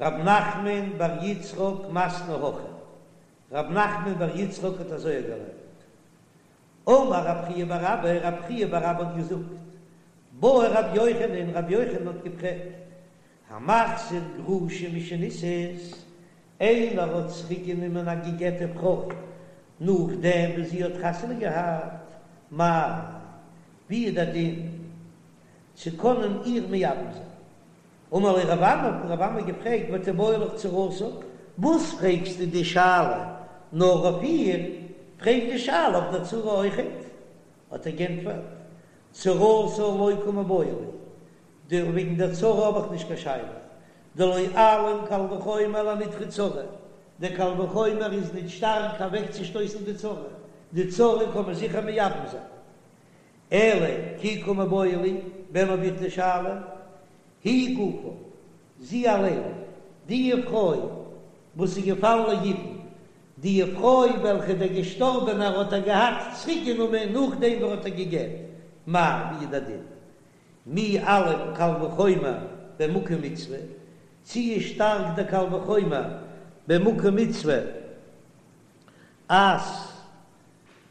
רב נחמן בר יצחק מתני הכי, רב נחמן בר יצחק האט אזוי געלערנט. אמר רב חייא בר אבא, רב חייא בר אבא האט געזאגט, בעי רבי יוחנן, רבי יוחנן האט געפרעגט, המחזיר גרושה משנישאת, איינער האט צוריק גענומען א געגעטע פרוי נאכדעם וואס זי האט חתונה געהאט, מהו, ווי איז דער דין צו קענען איר מייבם זיין? אמר ליה רב אמי, האט רב אמי געפרעגט, ותיבעי לך צרתה, וואס פרעגסטו די שאלה נאר אויף איר, פרעג די שאלה אויף דער צרה אויכעט. האט ער גענטפערט, צרתה לא קא מיבעיא לי, די וועגן דער צרה האב איך נישט קיין שאלה, דלא אלים קל וחומר לנידחי צרה, דער קל וחומר איז נישט שטארק אוועקצושטויסן די צרה, די צרה קען מען זיכער מייבם זיין. אלא כי קא מיבעיא לי, ווען האב איך די שאלה? היא גופה, זי אליין, די פרוי וואס איז געפאלן ליבום, די פרוי וועלכע דער געשטארבענער האט איר געהאט צוריקגענומען נאכדעם ווי ער האט איר געגעט, מהו, ווי איז דער דין? מי אלים קל וחומר במקום מצוה, צי איז שטארק דער קל וחומר במקום מצוה אז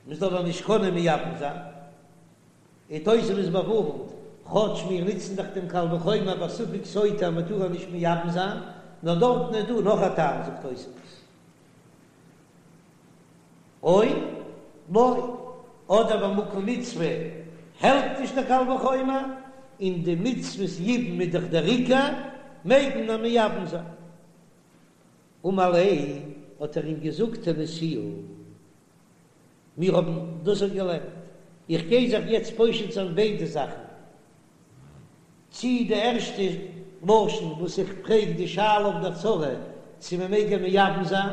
מען זאל איר נישט קענען מייבם זיין? און תוספות באווארנט, כאטש מיר נוצן דאך דעם קל וחומר ביי ספק סוטה אז מען טאר איר נישט מייבם זיין, נאר דארטן איז דא נאך א טעם זאגט תוספות, או לא, אדער במקום מצוה העלפט נישט דער קל וחומר, און די מצוות יבום איז דאך דער עיקר, מעג מען איר מייבם זיין. אמר ליה, האט ער אים געזאגט תניתוה. מיר האבן דאס אויך געלערנט. איך גיי זיך יעצט פושט זיין ביידע זאכן. צי די ערשטע לשון וואס איך פרעג די שאלה אויף דער צרה צו מען מעג איר מייבם זיין,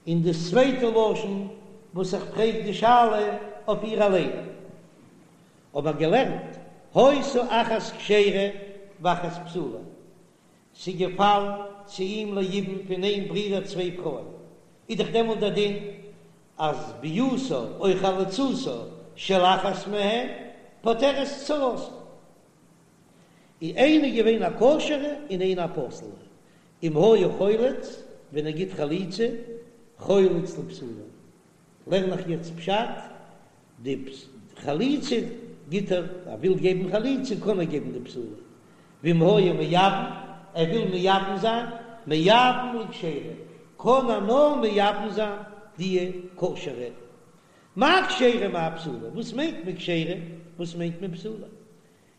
און די צווייטע לשון וואס איך פרעג די שאלה אויף איר אליין. האבן מיר געלערנט, היתה אחת כשרה ואחת פסולה. ס'איז געפאלן צו אים ליבום פון איין ברודער צוויי פרויען, איז דאך דעמאלט דער דין אז ביאתה או חליצתה של אחת מהן פוטרת צרתה. איז איינע געווען א כשר'ע און איינע א פסול'ע, אם היה חולץ, ווען ער גיט חליצה, חולץ לפסולה, לערן איך יעצט פשט, די חליצה גיט ער, ער וויל געבן חליצה קען ער געבן די פסולה, ואם היה מייבם, ער וויל מייבם זיין, מייבם לכשרה, קען ער נאר מייבם זיין די כשר'ע. מאי כשרה מאי פסולה, וואס מיינט מען כשרה, וואס מיינט מען פסולה?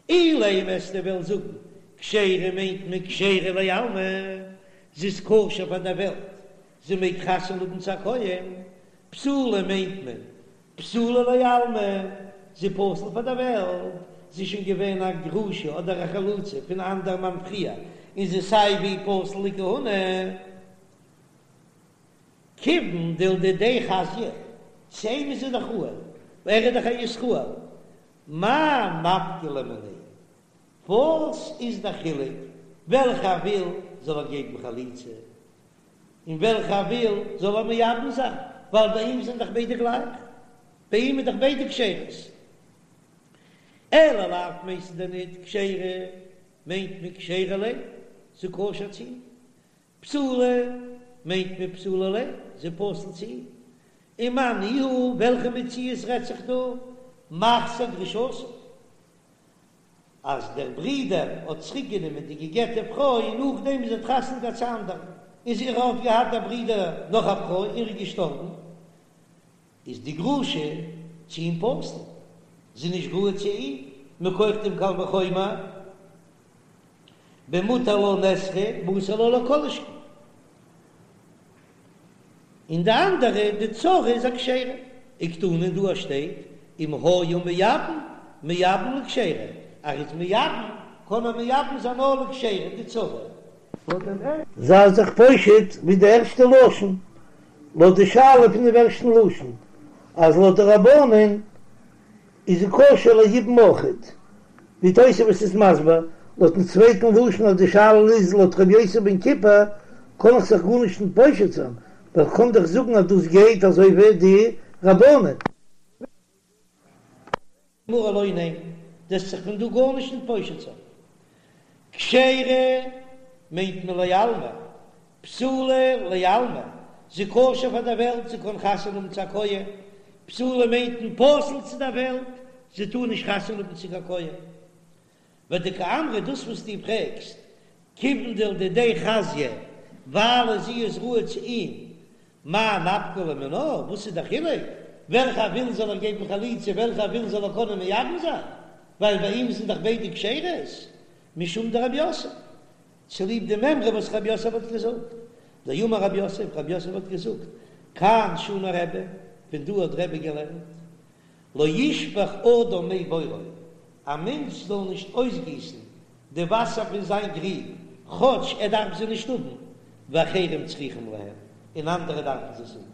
אילימא וועסטו וועלן זאגן כשרה מיינט מען כשרה לעלמא, זי איז כשר פאר דער וועלט, זי מעג חתונה האבן צו א כהן, פסולה מיינט מען פסולה לעלמא, זי פסול פאר דער וועלט, זי איז שוין געווען א גרושה אדער א חלוצה פון א אנדער מאן פריער, און זי איז סיי ווי פסול לכהונה. כיוון דלדידיה חזיא, צו אים איז זי דאך ראוי, ער איז דאך א ישראל, מאי נפקא ליה מיניה? וואס איז דער חילוק וועלכע ער וויל זאל ער געבן חליצה און וועלכע ער וויל זאל ער מייבם זיין, ווייל ביי אים זענען דאך ביידע גלייך, ביי אים איז דאך ביידע כשרות. אלא לאו מיינסטו דען ניט כשרה מיינט מען כשרה ליה, זי כשר צו אים, פסולה מיינט מען פסולה ליה, זי פסול צו אים. ומאי ניהו, וועלכע מציאות רעדט זיך דא? מחזיר גרושתו, אז דער ברודער האט צוריק גענומען די געגעטע פרוי נאכדעם וואס זי האט חתונה געהאט צו אנדערן, און זי האט געהאט דער ברודער נאך א פרוי און ער איז געשטארבן, איז די גרושה צו אים פסול, זי איז נישט ראוי צו אים, מכח דעם קל וחומר. במותר לה נאסרה ואסור לה לא כל שכן. און די אנדערע, די צרה איז א כשרה. וקתני דא שטייט אם היה מייבם, מייבם לכשרה, ער איז מייבם, קען ער מייבם זיין נאר לכשרה, די צרה. זיי זיך פושט ווי די ערשטע לשון, לויט די שאלה פון דעם ערשטן לשון, אז לויט די רבנן איז זי כשר ליבום אויכעט, ווי תוספות איז מסביר, לויטן צווייטן לשון אז די שאלה איז לויט ר' יוסי בן כיפר, קען איך זיך גארנישט נישט פושט זיין, ווייל כ'קען דאך זאגן אז דאס גייט אזוי ווי די רבנן. גמרא לא, ניין, דו וועסט זיך פון דא גארנישט נישט פושט זיין. כשרה. מיינט מען לעלמא, פסולה לעלמא, זי כשר פאר דער וועלט, זי קען חתונה האבן צו א כהן, פסולה מיינט מען פסול צו דער וועלט, זי טאר נישט חתונה האבן צו קיין כהן. ודקאמרת דאס וואס דו פרעגסט, כיוון דלדידיה חזיא, ווייל זי איז ראוי צו אים, מאי נפקא ליה מינה, וואס איז דער חילוק, וועלכע ער וויל זאל ער געבן חליצה, וועלכע ער וויל זאל ער קענען מייבם זיין, ווייל ביי אים זענען דאך ביידע כשרות, משום דרב יוסף, צוליב די מימרא וואס רב יוסף האט געזאגט, דאמר רב יוסף, רב יוסף האט געזאגט, כאן שנה רבי, פון דא האט רבי געלערנט, לא ישפוך אדם מי בורו, א מענטש זאל נישט אויסגיסן די וואסער פון זיין גריב, כאטש ער דארף זי נישט האבן, ואחרים צריכים להם, און אנדערע דארפן זיי עס האבן.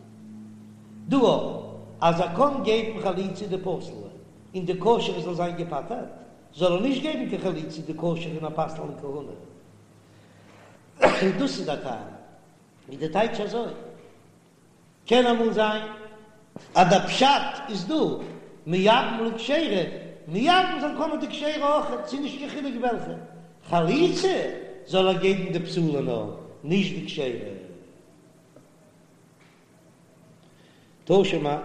דא אויך, אז ער קען געבן חליצה די פסול'ע, און די כשר'ע זאל זיין געפטר'ט, זאל ער נישט געבן קיין חליצה די כשר'ע און איר פסל'ן לכהונה. דאס איז דער טעם. איז די טייטש אזוי? קען אמאל זיין אז דער פשט איז דא מייבם לכשרה, מייבם זיין קען מען די כשר'ע אויך, ס'איז נישט קיין חילוק וועלכע, חליצה זאל ער געבן די פסול'ע נאר, נישט די כשר'ע. תא שמע,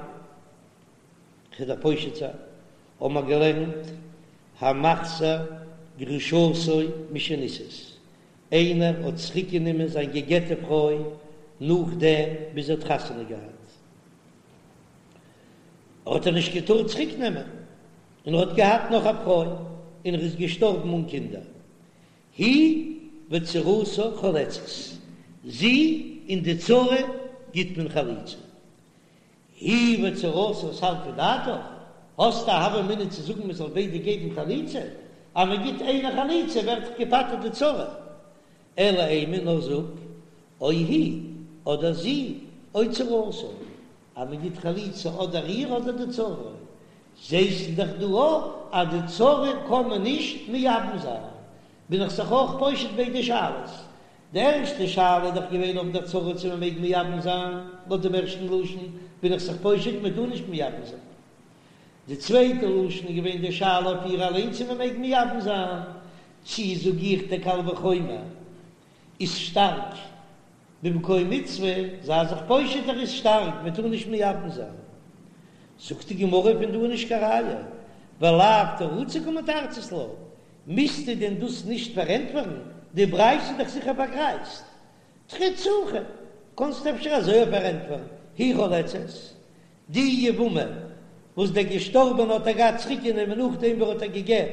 כ'וועל דיר פושט זיין, האבן מיר געלערנט המחזיר גרושתו משנישאת, איינער האט צוריקגענומען זיין גע'גט'ע פרוי נאכדעם ווי זי האט חתונה געהאט, האט ער נישט געטארט צוריקנעמען, און ער האט געהאט נאך א פרוי, און ער איז געשטארבן אן קינדער, היא וצרתה חולצות, זי און די צרה גיט מען חליצה. היא וצרתה סלקא דעתך, האסט א הוה אמינא צו זאגן מען זאל ביידע געבן חליצה? אז מען גיט איינער חליצה ווערט דאך געפטר'ט די צרה. אלא אימא נאר זאג, או היא, אדער זי, או צרתה, אז מען גיט חליצה אדער איר אדער די צרה, זעסט דאך דא אויך אז די צרה קען מען נישט מייבם זיין, בין איך זיך אויך פושט ביידע שאלות, די ערשטע שאלה איז דאך געווען אויף דער צרה צו מען מעג מייבם זיין, לויט דעם ערשטן לשון בין איך זיך פושט מען טאר נישט מייבם זיין. די צווייטע לשון איז געווען די שאלה אויף איר אליין צו מען מעג מייבם זיין, צי זאג איך דער קל וחומר איז שטארק במקום מצוה, זיי זיך פושט ער איז שטארק מען טאר נישט מייבם זיין. זאגט די גמרא פון דא איז נישט קיין ראיה, ולאו תרוצי קמתרצת לה, מוזטו דען דאס נישט פארענטפערן? די ברייתא איז דאך זיכער פארגרייזט. תריץ הכי, קאנסט אפשר אזוי פארענטפערן, היא חולצת, די יבמה וואס דער געשטארבענע האט איר געהאט צוריקגענומען נאכדעם ווי ער האט איר גע'גט,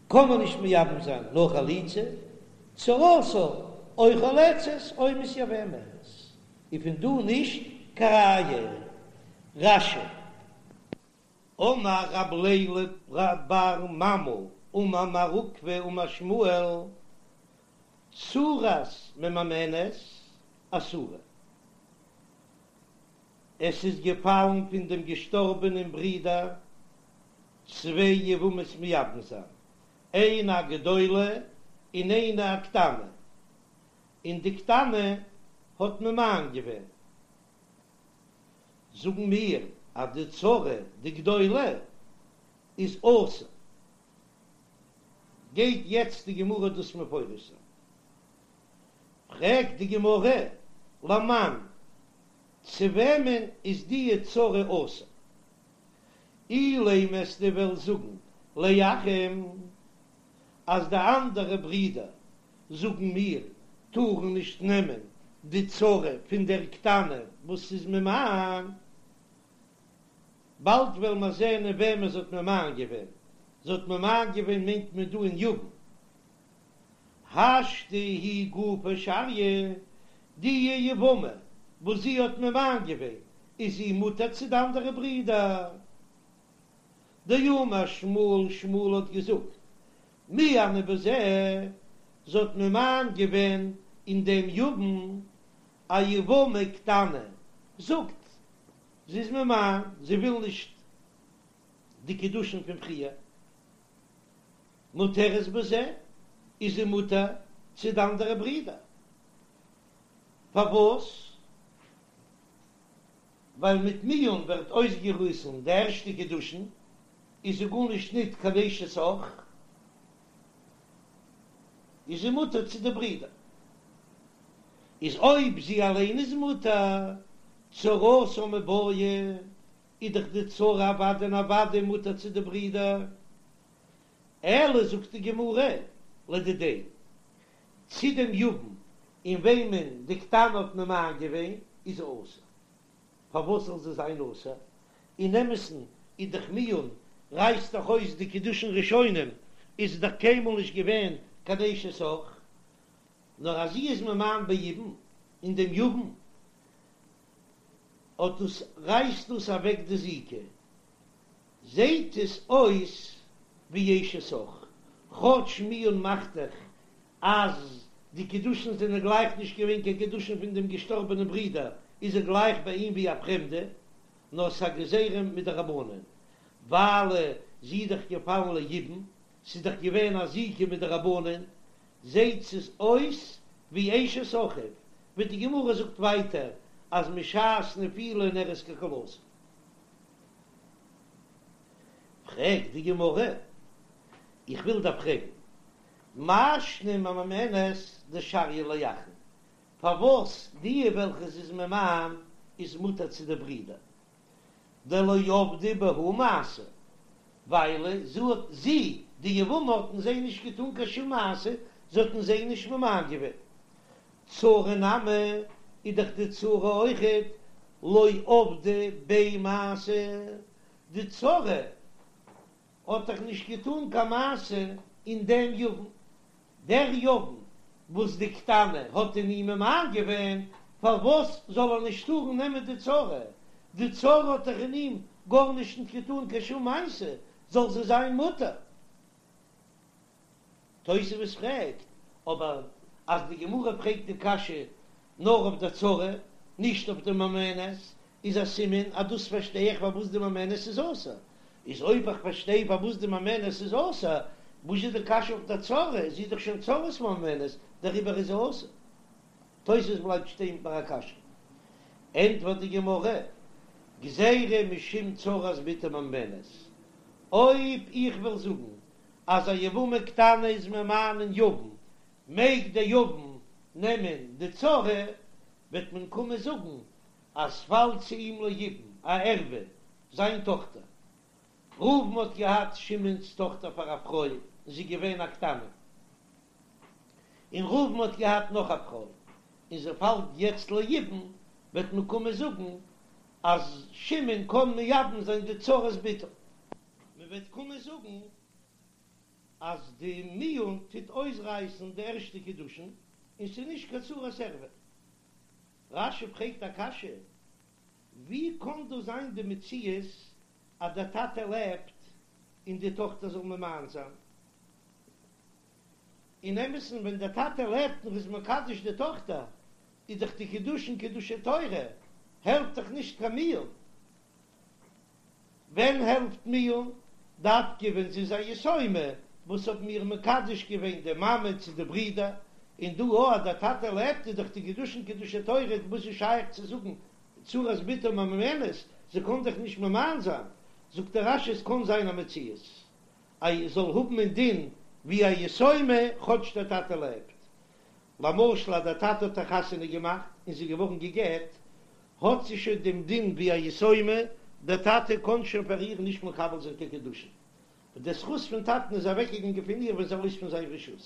קען מען נישט מייבם זיין נאר חליצה, צרתה או חולצת או מתייבמת, איז פון דא נישט קיין ראיה. רש"י. אמר רב לילא בר ממל אמר מר עוקבא אמר שמואל, צרת ממאנת אסורה. עס איז געפאלן פון דעם געשטארבענעם ברודער צוויי יבמות מייבם זיין, איינע א גדולה און איינע א קטנה, און די קטנה האט ממאן געווען. זאגן מיר אז די צרה די גדולה איז אסור, גייט יעצט די גמרא דאס מפרש זיין, פרעגט די גמרא למאן, צו וועמען איז די צרה אסור? אילימא אז דו וועסט זאגן לאחים אז די אנדערע ברידער זאגן מיר, טארן נישט נעמען די צרה פון דער קטנה וואס איז ממאן, באלד וועלן מיר זען אין וועמען זי האט ממאן געווען, זי האט ממאן געווען מיינט מען דא אין יבם. השתא היא גופה שריא, די יבמה וואס זי האט ממאן געווען, איז זי מותר צו די אנדערע ברידער. דאמר שמואל, שמואל האט געזאגט, מיאנה בזה, זי האט ממאן געווען אין דעם יבם א יבמה קטנה, זאגט זי איז ממאן, זי וויל נישט די קידושין פון פריער, מותרת בזה, איז זי מותר צו די אנדערע ברידער, פארוואס? ווייל מיט מיאון ווערט אויסגעריסן די ערשטע קידושין, איז זי גארנישט ניט קיין אשת אח. איז זי מותר צו די ברידער. איז אויב זי אליין איז מותר, צרתה מיבעיא, איז דאך די צרה אוודאי און אוודאי מותר צו די ברידער. אלא זאגט די גמרא, לדידיה, צו דעם יבם אין וועמען די קטנה האט ממאן געווען, איז זי אסור. פארוואס זאל זי זיין אסור? אין אמת'ן איז דאך מיאון רייסט דאך אויס די קידושין ראשונים, איז זי דאך קיינמאל נישט געווען קיין אשת אח, נאר אז זי איז ממאן ביבום אין דעם יבם, אט דאס רייסט דאס אוועק די זיקה, זעהט עס אויס ווי אשת אח, כאטש מיאון מאכט דאך אז די קידושין זענען גלייך נישט געווען קיין קידושין פון דעם געשטארבענעם ברודער, איז ער גלייך ביי אים ווי א פרעמדע, נאר ס'א גזירה מדרבנן, ווייל זי איז דאך געפאלן ליבום, ס'איז דאך געווען א זיקה מדרבנן, זעהט עס אויס ווי אשת אחיו, ווי די גמרא זאגט ווייטער אז משעת נפילה נראית ככלתו. פרעגט די גמרא, איך וויל דיר פרעגן, מאי שנא ממאנת דשריא לאחין, פארוואס די וועלכע זי איז ממאן איז מותר צו די ברידער, דלא עבדה בהו מעשה, ווייל זי האט, זי, די יבמה האט אין זיי נישט געטאן קיין שום מעשה, זי האט אין זיי נישט ממאן געווען. צרה נמי, איז דאך די צרה אויכעט לא עבדה ביה מעשה, די צרה האט דאך נישט געטאן קיין מעשה אין דעם יבם, דער יבם וואס די קטנה האט אין אים ממאן געווען, פארוואס זאל ער נישט טארן נעמען די צרה? די צרה האט דאך אין אים גארנישט נישט געטאן קיין שום מעשה, זאל זי זיין מותר. תוספות פרעגט אבער אז די גמרא פרעגט די קשיא נאר אויף די צרה, נישט אויף די ממאנת, איז א סימן אז דאס פארשטיי איך פארוואס די ממאנת איז אסור. איז אויב איך פארשטיי פארוואס די ממאנת איז אסור, וואס איז די קשיא אויף די צרה? זי איז דאך שוין צרת ממאנת, דעריבער איז זי אסור. תוספות בלייבט שטיין ביי א קשיא. ענטפערט די גמרא, גזירה משום צרת בתו ממאנת. אויב איך וועל זאגן אז א יבמה קטנה איז ממאן אין יבם, מעג דער יבם נעמען די צרה, וועט מען קומען זאגן אז ס'פאלט צו אים ליבום א ערווה, זיין טאכטער. ראובן האט געהאט שמעון'ס טאכטער פאר א פרוי און זי איז געווען א קטנה, און ראובן האט געהאט נאך א פרוי און זי פאלט יעצט ליבום, וועט מען קומען זאגן אז שמעון קען מייבם זיין די צרת בתו. מען וועט קומען זאגן אז די מיאון טוט אויסרייסן די ערשטע קידושין און ס'איז נישט קיין צרת ערווה. רש"י פרעגט א קשיא, ווי קען דא זיין די מציאות אז דער טאטע לעבט און די טאכטער זאל ממאן זיין? אין אמת'ן ווען דער טאטע לעבט און איז מקדש די טאכטער איז דאך די קידושין קידושי תורה, העלפט דאך נישט קיין מיאון. ווען העלפט מיאון? דווקא ווען זי איז א יתומה וואס האבן איר מקדש געווען די מאמע צו די ברידער, און דא אויך אז דער טאטע לעבט איז דאך די קידושין קידושי תורה, וואס איז שייך צו זאגן צרת בתו ממאנת, זי קען דאך נישט ממאן זיין, זאגט דער רש"י עס קען זיין א מציאות אז זי זאל האבן א דין ווי א יתומה כאטש דער טאטע לעבט, למשל אז דער טאטע האט איר חתונה געמאכט און זי איז געווארן גע'גט, האט זי שוין דעם דין ווי א יתומה, דער טאטע קען שוין פאר איר נישט מקבל זיין קיין קידושין, און דער זכות פון טאטן איז אוועקגעגאנגען פון איר ווען זי איז ארויס פון זיין רשות.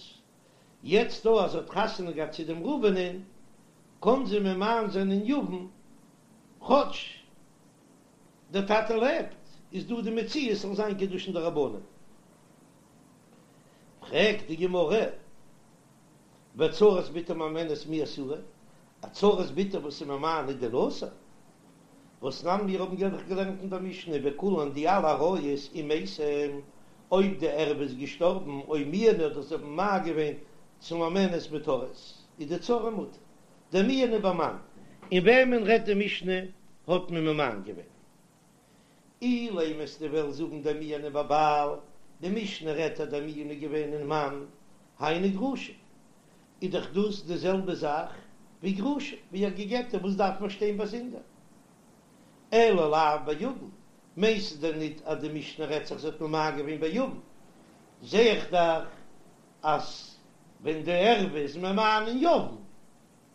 יעצט דא אז זי האט חתונה געהאט צו דעם ראובנ'ען, קען זי ממאן זיין אין יבם, כאטש דער טאטע לעבט, איז דא די מציאות ס'זאל זיין קידושין דרבנן. פרעגט די גמרא, וצרת בתו ממאנת מי אסירא, א צרת בתו וואס איז ממאן איז דען אסור? והתנן מיר האבן דאך געלערנט אין דער משנה וכולן די אלע עריות אם מתה אויב די ערווה איז געשטארבן או מיאנו אדער זיי האבן ממאן געווען צו ממאנת מותרות איז די צרה מותר דמיאנו במאן. אין וועמען רעדט די משנה האט מען ממאן געווען? אילימא וועסטו וועלן זאגן דמיאנו בבעל, די משנה רעדט אז דער מיאון איז געווען אין מאן, היינו גרושה, איז דאך דאס די זעלבע זאך ווי גרושה, ווי א גע'גט'ע, וואס דארף מען שטיין באזונדער? אלא לאו ביבם, מיינסטו דען ניט אז די משנה רעדט זיך זי האט ממאן געווען ביבם? זע איך דאך אז. ווען די ערווה איז ממאן אין יבם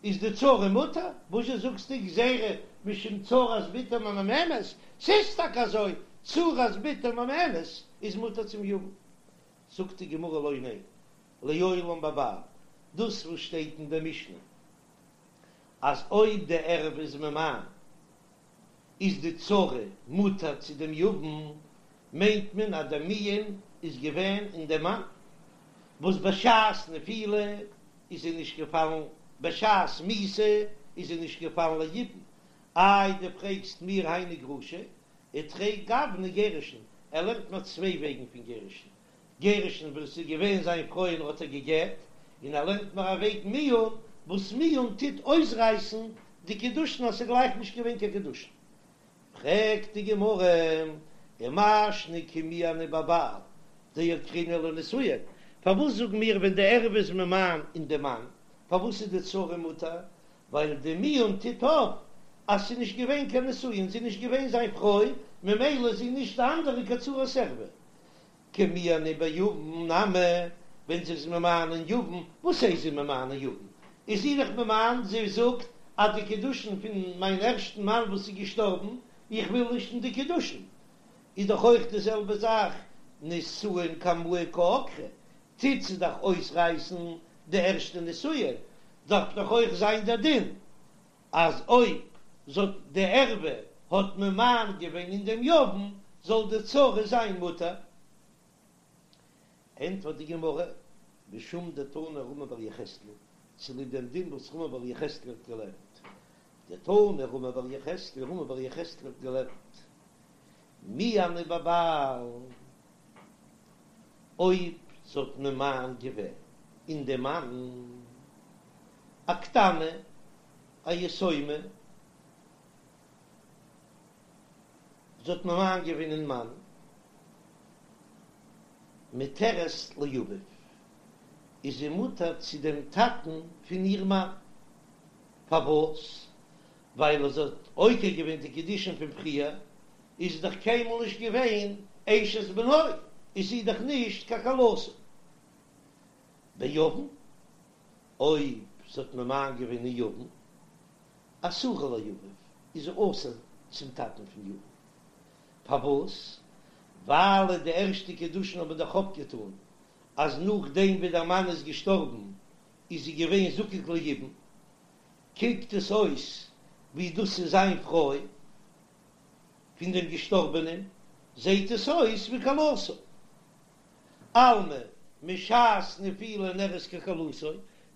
איז די צרה מותר, וואזשע זאגסטו גזירה משום צרת בתו ממאנת, ס'איז טאקע אזוי, צרת בתו ממאנת איז מותר צום יבם. זאגט די גמרא לא, ניין, לעולם בבעל, דאס וואס שטייט אין די משנה אז אויב די ערווה איז ממאן איז די צרה מותר צו דעם יבם, מיינט מען אז דער מיאון איז געווען אין דעם מאן, וואס בשעת נפילה איז זי נישט געפאלן, בשעת מיתה איז זי נישט געפאלן ליבום, איי דו פרעגסט מיר היינו גרושה, ותרי גווני גירושין, ער לערנט מיר צוויי וועגן פון גירושין, גירושין וואס איז געווען זיין פרוי און האט איר גע'גט, און ער לערנט מיר א וועג מיאון, וואס מיאון טוט אויסרייסן די קידושין אז ס'איז גלייך נישט געווען קיין קידושין. פרעגט די גמרא, ומאי שנא כי מיאנה בבעל דעקרינהו לנישואין, פארוואס זאגן מיר ווען די ערווה איז ממאן אין די מאן, פארוואס איז די צרה מותר, ווייל די מיאון טוט אויף אז ס'איז נישט געווען קיין נישואין, זי איז נישט געווען זיין פרוי, ממילא איז זי נישט די אנדערע קיין צרת ערווה. כי מיאנה ביבם נמי, ווען זי איז ממאן אין יבם, וואס הייסט זי ממאן אין יבם? איז זי דאך ממאן, זי זאגט אז די קידושין פון מיין ערשטן מאן וואס איז געשטארבן, איך וויל נישט אין די קידושין, איז דאך אויך די זעלבע זאך, נישואין קמאי קא עקרה, טוט זי דאך אויסרייסן די ערשטע נישואין, דארף דאך אויך זיין דער דין אז אויב זאל די ערווה האט ממאן געווען אין דעם יבם זאל די צרה זיין מותר. ענטפערט די גמרא, משום דתנא רמי בר יחזקאל, צוליב דעם דין וואס רמי בר יחזקאל האט געלערנט, דתנא רמי בר יחזקאל, רמי בר יחזקאל האט געלערנט, מיאנה בבעל, אויב זי האט ממאן געווען אין דעם מאן, א קטנה, א יתומה, זי האט ממאן געווען אין מאן, מותרת לאביו, איז זי מותר צו דעם טאטן פון איר מאן, פארוואס? ווייל אז זי האט עוקר געווען די קידושין פון פריער, איז זי דאך קיינמאל נישט געווען אשת בנו, איז זי דאך נישט קיין כלתו. ביבם, אויב זי האט ממאן געווען אין יבם, אסורה לאביו, איז זי אסור צום טאטן פון יבם. פארוואס? ווייל די ערשטע קידושין האבן דאך אפגעטאן אז נאכדעם ווי דער מאן איז געשטארבן איז זי געווען זקוק ליבום, קוקט עס אויס ווי דאס איז זיין פרוי פון דעם געשטארבענעם, זעהט עס אויס ווי כלתו. אלמא משעת נפילה נראית ככלתו,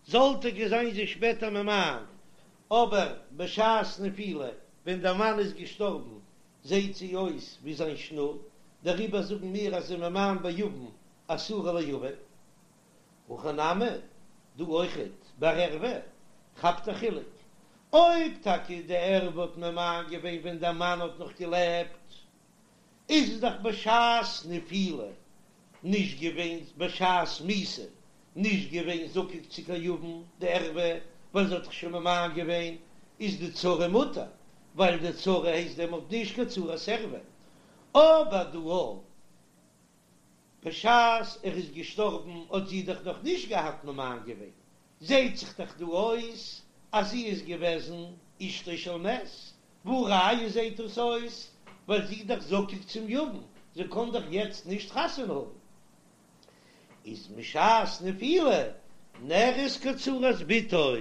זאל טאקע זיין זי שפעטער ממאן, אבער בשעת נפילה ווען דער מאן איז געשטארבן זעהט זי אויס ווי זיין שנור, דעריבער זאגן מיר אז זי ממאן ביבם אסורה לאביו. הכא נמי, דא אויכעט ביי ערווה כאפט א חילוק, אויב טאקע די ערווה האט ממאן געווען ווען דער מאן האט נאך געלעבט, איז עס דאך בשעת נפילה נישט געווען בשעת מיתה נישט געווען זקוק צו קיין יבם די ערווה ווייל זי האט דאך שוין ממאן געווען איז די צרה מותר ווייל די צרה הייסט דעמאלט נישט קיין צרת ערווה אבער דא בשעת ער איז געשטארבן האט זי דאך נאך נישט געהאט ממאן געווען, זעהט זיך דאך דא אויס אז זי איז געוועזן אשתו של מת, והא ראיה זעהט דאס אויס ווייל זי איז דאך זקוק צום יבם, זי קען דאך יעצט נישט חתונה האבן, איז משעת נפילה נראית כצרת בתו,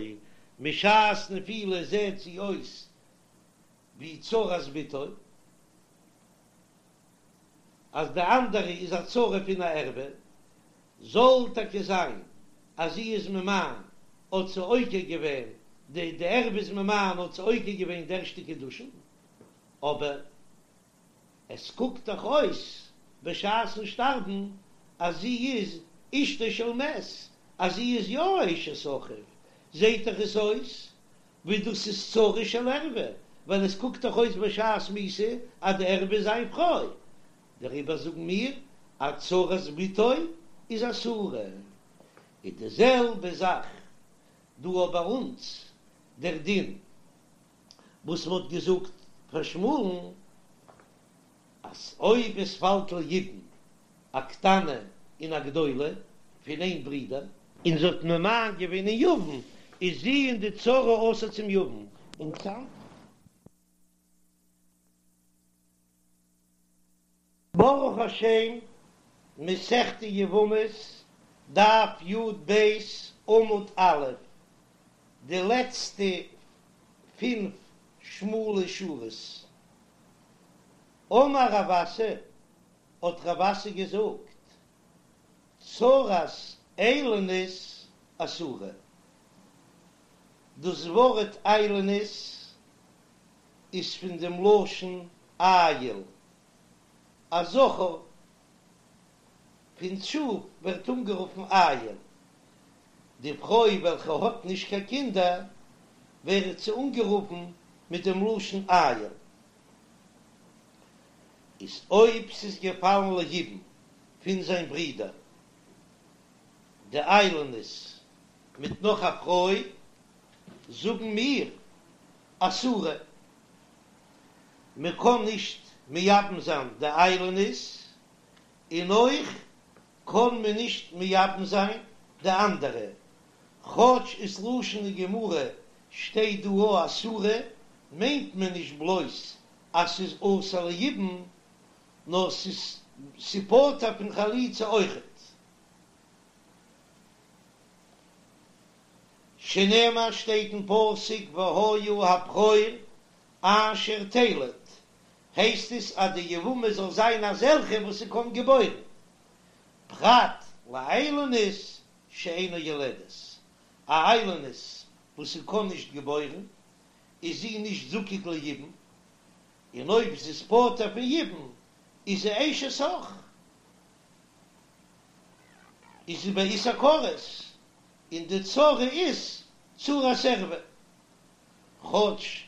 משעת נפילה זעהט זי אויס ווי צרת בתו. אז די אנדערע איז א צרה פון א ערווה, זאל טאקע זיין אז זי איז ממאן האט זי עוקר געווען די די ערווה איז ממאן האט זי עוקר געווען די ערשטע קידושין, אבער עס קוקט דאך אויס בשעת'ן שטארבן אז זי איז אשתו של מת, אז זי איז יא אשת אחיו, זעהט דאך עס אויס ווי דאס איז צרה של ערווה, ווייל עס קוקט דאך אויס בשעת מיתה אז די ערווה איז זיין פרוי, דעריבער זאגן מיר אז צרת בתו איז אסורה. איז די זעלבע זאך דא אויך ביי אונז דער דין וואס מען האט געזאגט פאר שמואל'ן אז אויב עס פאלט ליבום א קטנה און א גדולה פון איין ברודער. און זי האט ממאן געווען אין יבם, איז זי און די צרה אסור צום יבם. און צאם. ברוך השם, מסכת יבמות, דף י"ב, עמוד א', די לעצטע פינף שמאלע שורות. אמר רב אסי, האט רב אסי געזאגט, צרת איילונית אסורה. דאס ווארט איילונית איז פון דעם לשון איל, א זכר פון שאף ווערט אנגערופן איל. די פרוי וועלכע האט נישט קיין קינדער ווערט זי אנגערופן מיט דעם לשון איל. איז אויב ס'איז געפאלן ליבום פון זיין ברודער די איילונית מיט נאך א פרוי, זאגן מיר אסורה, מען קען נישט מייבם זיין די איילונית, און אויך קען מען נישט מייבם זיין די אנדערע, כאטש איז לשון הגמרא שטייט דא א אסורה, מיינט מען נישט בלויז אז ס'איז אסור ליבום, נאר ס'איז פטור פון חליצה אויכעט. שנאמר שטייט אין פסוק והיה הבכור אשר תלד, הייסט עס אז די יבמה זאל זיין אזעלכע וואס ס'קען געבוירן, פרט לאיילונית שאינה יולדת, א איילונית וואס ס'קען נישט געבוירן איז זי נישט זקוק ליבום, און אויב זי איז פטור פון יבום איז זי אשת אח, איז זי באיסור כרת, און די צרה איז צרת ערווה. כאטש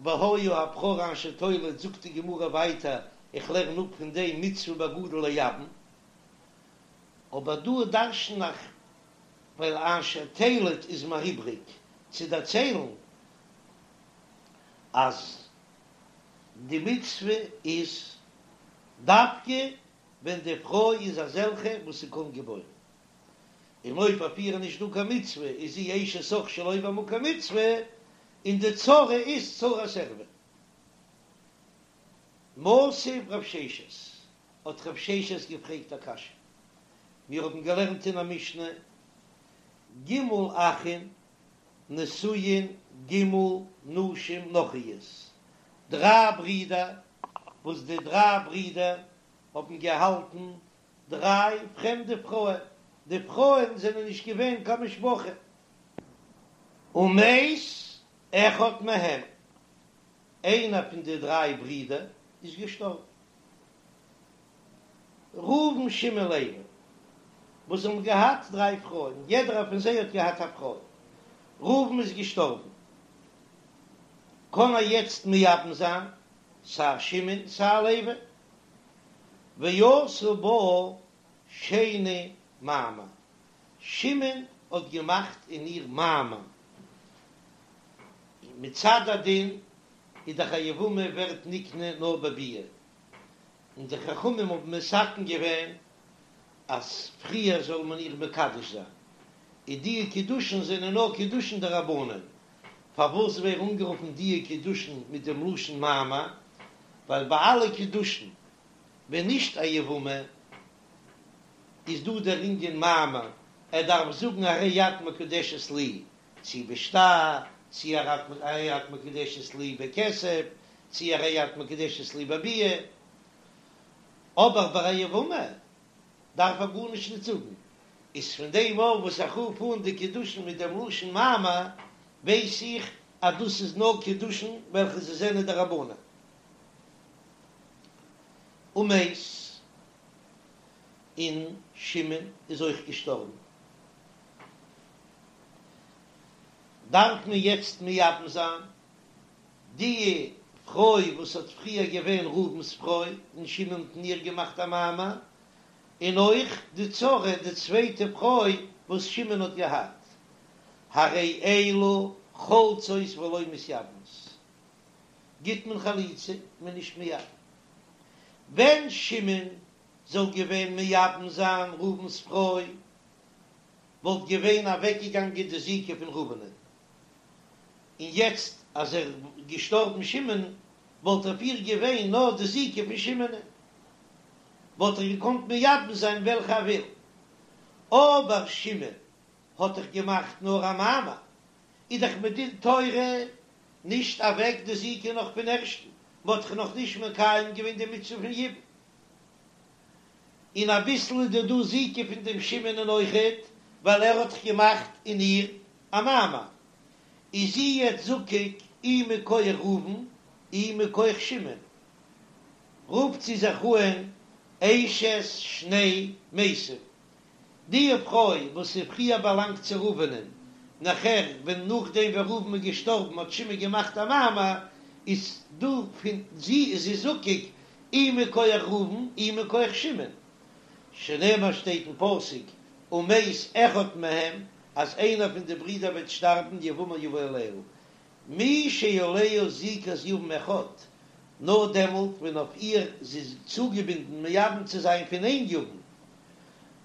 והיה הבכור אשר תלד זאגט די גמרא ווייטער איך לערן אפ פון דעם מצוה בגדול לייבם, אבער דא דרשן איך ווייל אשר תלד איז מיר איבריג צו דערציילן אז די מצוה איז דווקא ווען די פרוי איז אזעלכע וואס זי קען געבוירן, און אויב אויף איר איז נישט דא קיין מצוה איז זי אשת אח שלא במקום מצוה, און די צרה איז צרת ערווה. מתיב רב ששת, האט רב ששת געפרעגט א קשיא, מיר האבן געלערנט אין א משנה, ג' אחין נשואין ג' נשים נכריות, דריי ברידער, וואס די דריי ברידער האבן געהאלטן דריי פרעמדע פרויען, די פרויען זענען נישט געווען קיין משפחה, ומת אחד מהם, איינער פון די דריי ברידער איז געשטארבן. ראובן שמעון לוי, וואס האבן געהאט דריי פרויען, יעדערער פון זיי האט געהאט א פרוי, ראובן איז געשטארבן, קען ער יעצט מייבם זיין סיי שמעון סיי לוי, ועשה בה שני מאמר, שמעון האט געמאכט אין איר מאמר, מצד הדין איז דאך א יבמה ווערט נקנה נאר בביאה, און די חכמים האבן מתקן געווען אז פריער זאל מען איר מקדש זיין, און די קידושין זענען נאר קידושין דרבנן, פארוואס ווערן אנגערופן די קידושין מיט דעם לשון מאמר? ווייל ביי אלע קידושין ווען נישט א יבמה איז דא דער ענין מאמר, ער דארף זאגן הרי את מקודשת לי, צי בשטר, צי הרי את מקודשת לי בכסף, צי הרי את מקודשת לי בביאה, אבער ביי א יבמה דארף ער גארנישט נישט זאגן, איז פון דעם אויף וואס איך רוף אן די קידושין מיט דעם לשון מאמר, ווייס איך אז דאס איז נאר קידושין וועלכע זיי זענען דרבנן. ומת, און שמעון איז אויך געשטארבן. דארף מען יעצט מייבם זיין די פרוי וואס האט פריער געווען ראובן'ס פרוי און שמעון האט אין איר געמאכט א מאמר, און אויך די צרה די צווייטע פרוי וואס שמעון האט געהאט, הרי אלו חולצות ולא מתייבמות, גיט מען חליצה מען נישט מייבם. ווען שמעון זאל געווען מייבם זיין ראובן'ס פרוי. וואלט געווען אוועקגעגאנגען די זיקה פון ראובנ'ען, און יעצט אז ער איז געשטארבן שמעון וואלט אויף איר געווען נאר די זיקה פון שמעונ'ען, וואלט ער געקאנט מייבם זיין וועלכע ער וויל, אבער שמעון האט דאך געמאכט נאר א מאמר, איז דאך מדין תורה נישט אוועק די זיקה נאך פון ערשטן, מ'האט דאך נאך נישט מקיים געווען די מצוה פון יבום. און אביסל איז דא דא זיקה פון דעם שמעונ'ען אויכעט, ווייל ער האט דאך געמאכט אין איר א מאמר. איז זי יעצט זקוק אי מכח ראובן אי מכח שמעון. רופט זי זיך אהן אשת שני מתים. די פרוי וואס איז פריער באלאנגט צו ראובנ'ען, נאכער ווען נאכדעם ווען ראובן איז געשטארבן האט שמעון געמאכט א מאמר, איז דא פון זי איז זי זקוק אי מכח ראובן אי מכח שמעון, שנאמר שטייט אין פסוק ומת אחד מהם אז איינער פון די ברידער וועט שטארבן יבמה יבא עליה, מי שעליה זיקת יבם אחד, נאר דעמאלט ווען אויף איר זי איז צוגעבינדן מייבם צו זיין פון איין יבם,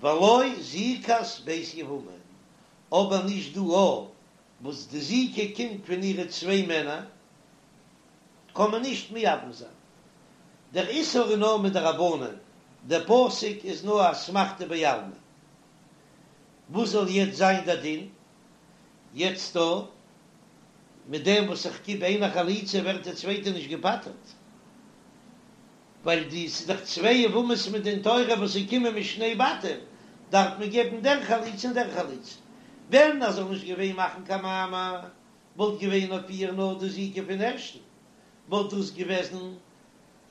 ולא זיקת ב' יבמים, אבער נישט דא א וואס די זיקה קומט פון אירע צוויי מענער, קען מען נישט מייבם זיין. דער איסור איז נאר מדרבנן, דער פסוק איז נאר אסמכתא בעלמא. וואס זאל יעצט זיין דער דין? יעצט דא, מיט דעם וואס איך גיב איינער חליצה ווערט די צווייטע נישט געפטר'ט, ווייל די ס'איז דאך צוויי יבמות מדין תורה וואס זיי קומען משני בתים, דארף מען געבן דער חליצה און דער חליצה. ווען ער זאל נישט געווען מאכן קיין מאמר, וואלט געווען אויף איר נאר די זיקה פון ערשטן, וואלט דאס געוועזן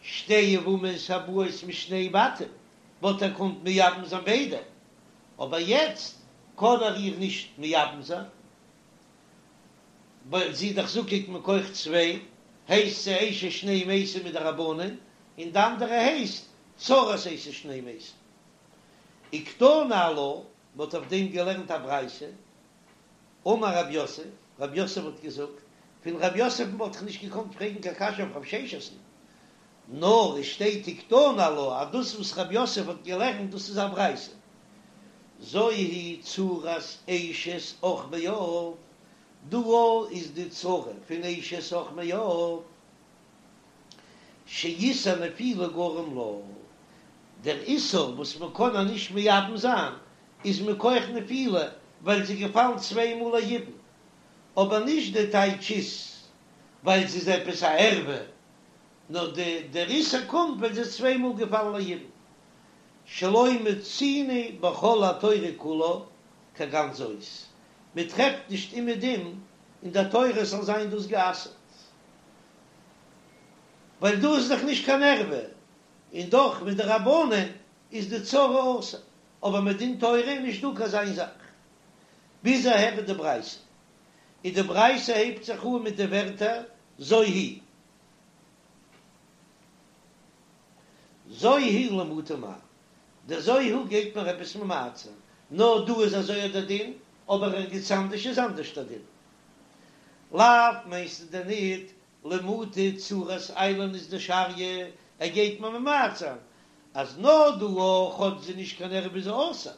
שתי יבמות הבאות משני בתים, וואלט ער געקאנט מייבם זיין ביידע, אבער יעצט קען ער איר נישט מייבם זיין, ווייל זי איז דאך זקוק מכח צוויי, הייסט זי אשת שני מתים מדרבנן, און די אנדערע הייסט צרת אשת שני מתים. וקתני עלה, מ'האט אויף דעם געלערנט א ברייתא, אמר רב יוסף, רב יוסף האט געזאגט, פון רב יוסף'ן וואלט איך נישט געקאנט פרעגן קיין קשיא אויף רב ששת'ן, נאר עס שטייט וקתני עלה אז דאס וואס רב יוסף האט געלערנט דאס איז א ברייתא, זו היא צרת אשת אח מאב, דא איז די צרה פון אשת אח מאב, שאיסור נפילה גרם לה, דער איסור וואס מען קען איר נישט מייבם זיין איז מכח נפילה ווייל זי איז געפאלן צוויי מאל ליבום, אבער נישט די טייטש איז ווייל זי איז עפעס א ערווה, נאר די דער איסור קומט ווייל זי איז צוויי מאל געפאלן ליבום, שלא מצינו בכל התורה כולה כגון זאת, מען טרעפט נישט אומעדום אין דער תורה זאל זיין דאס גע'אסר'ט, ווייל דא איז דאך נישט קיין ערווה, און דאך מדרבנן איז די צרה אסור, אבער מדין תורה איז נישט דא קיין אזא זאך. ביז אהער איז די ברייתא, און די ברייתא הייבט זיך אן מיט די ווערטער זו היא. זו היא למעוטי מאי, דער זו היא גייט מיר עפעס ממעט זיין, נאר דא איז אזוי דער דין, אבער ערגעץ אנדערש איז אנדערש דער דין. לאו מיינסטו דען ניט למעוטי צרת איילונית דשריא, ער גייט מיר ממעט זיין אז נאר דא אויך כאטש זי נישט קיין ערווה איז זי אסור,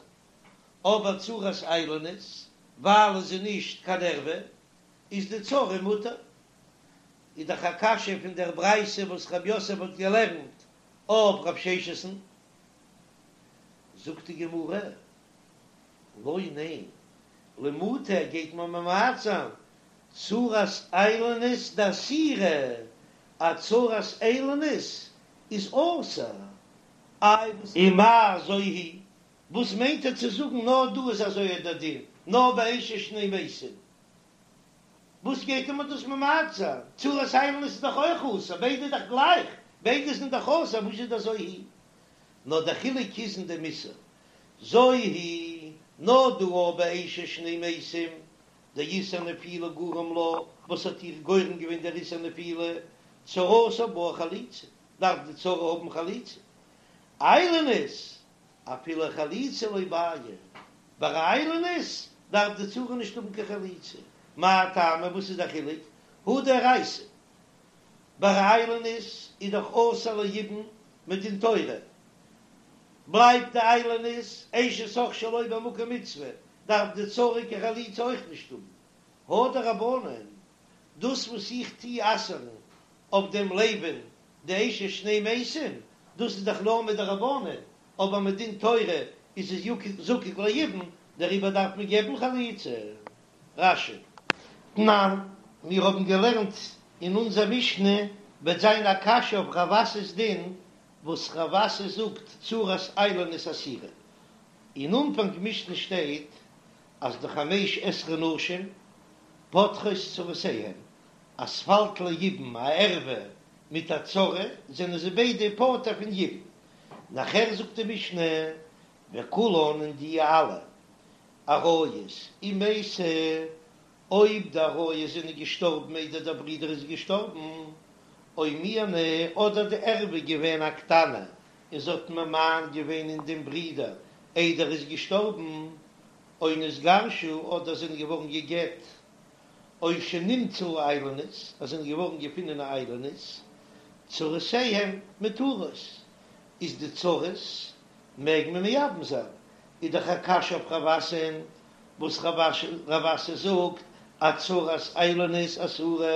אבער צרת איילונית ווייל איז זי נישט קיין ערווה איז די צרה מותר. איז דאך א קשיא פון דער ברייתא וואס רב יוסף האט געלערנט אויף רב ששת'ן. זאגט די גמרא, לא ניין, למעוטי גייט מען ממעט זיין צרת איילונית דאסירא, א צרת איילונית איז אסור. איי ומאי זו היא, וואס מיינט ער צו זאגן נאר דא איז אזוי דער דין, נאר ביי אשת שני מתים? וואס גייט אים דאס ממעט זיין? צרת איילונית איז דאך אויך אסור, ביידע איז דאך גלייך, ביידע זענען דאך אסור, וואס איז דער זו היא? נאר דער חילוק איז אין דעם איסור, זו היא, נאר דא אבער ביי אשת שני מתים, דאיסור נפילה גרם לה, וואס האט איר גורם געווען דער איסור נפילה, צרתה בעיא חליצה, דארף די צרה האבן חליצה, איילונית, אפילו חליצה לא בעיא, ביי א איילונית דארף די צרה נישט האבן קיין חליצה, מאי טעמא וואס איז די חילוק? הא דאורייתא, ביי א איילונית איז דאך אסור ליבום מדין תורה, בלייבט די איילונית אשת אח שלא במקום מצוה, דארף די צרה קיין חליצה אויך נישט האבן. הא דרבנן, דאס וואס איך טוה אסר'ן אויף דעם לוי'ן די אשת שני מתים, דאס איז דאך נאר מדרבנן, אבער מדין תורה איז עס זקוק ליבום, דעריבער דארף מען געבן חליצה. רש"י. תנן, מיר האבן געלערנט אין אונזער משנה, וועט זיין א קשיא אויף רב אסי'ס דין, וואס רב אסי זאגט צרת איילונית אסורה. אין אנפאנג משנה שטייט אז די חמש עשרה נשים פוטרות צרותיהן, אז ס'פאלט ליבום א ערווה מיט א צרה זענען זיי ביידע פטור פון יבום. נאכער זאגט די משנה וכולן און די אלע עריות אם מתו, אויב די עריות זענען געשטארבן איידער דער ברודער איז געשטארבן, או מיאנו, אדער די ערווה געווען א קטנה און זי האט ממאן געווען אין דעם ברודער איידער ער איז געשטארבן, או נתגרשו, אדער זענען געווארן גע'גט, או שנמצאו איילונית, אז זענען געווארן געפונען א איילונית, צרותיהם מותרות, איז די צרות מעג מען מייבם זיין, איז דאך א קשיא אויף רב אסי'ן, וואס רב אסי זאגט אז צרת איילונית אסורה.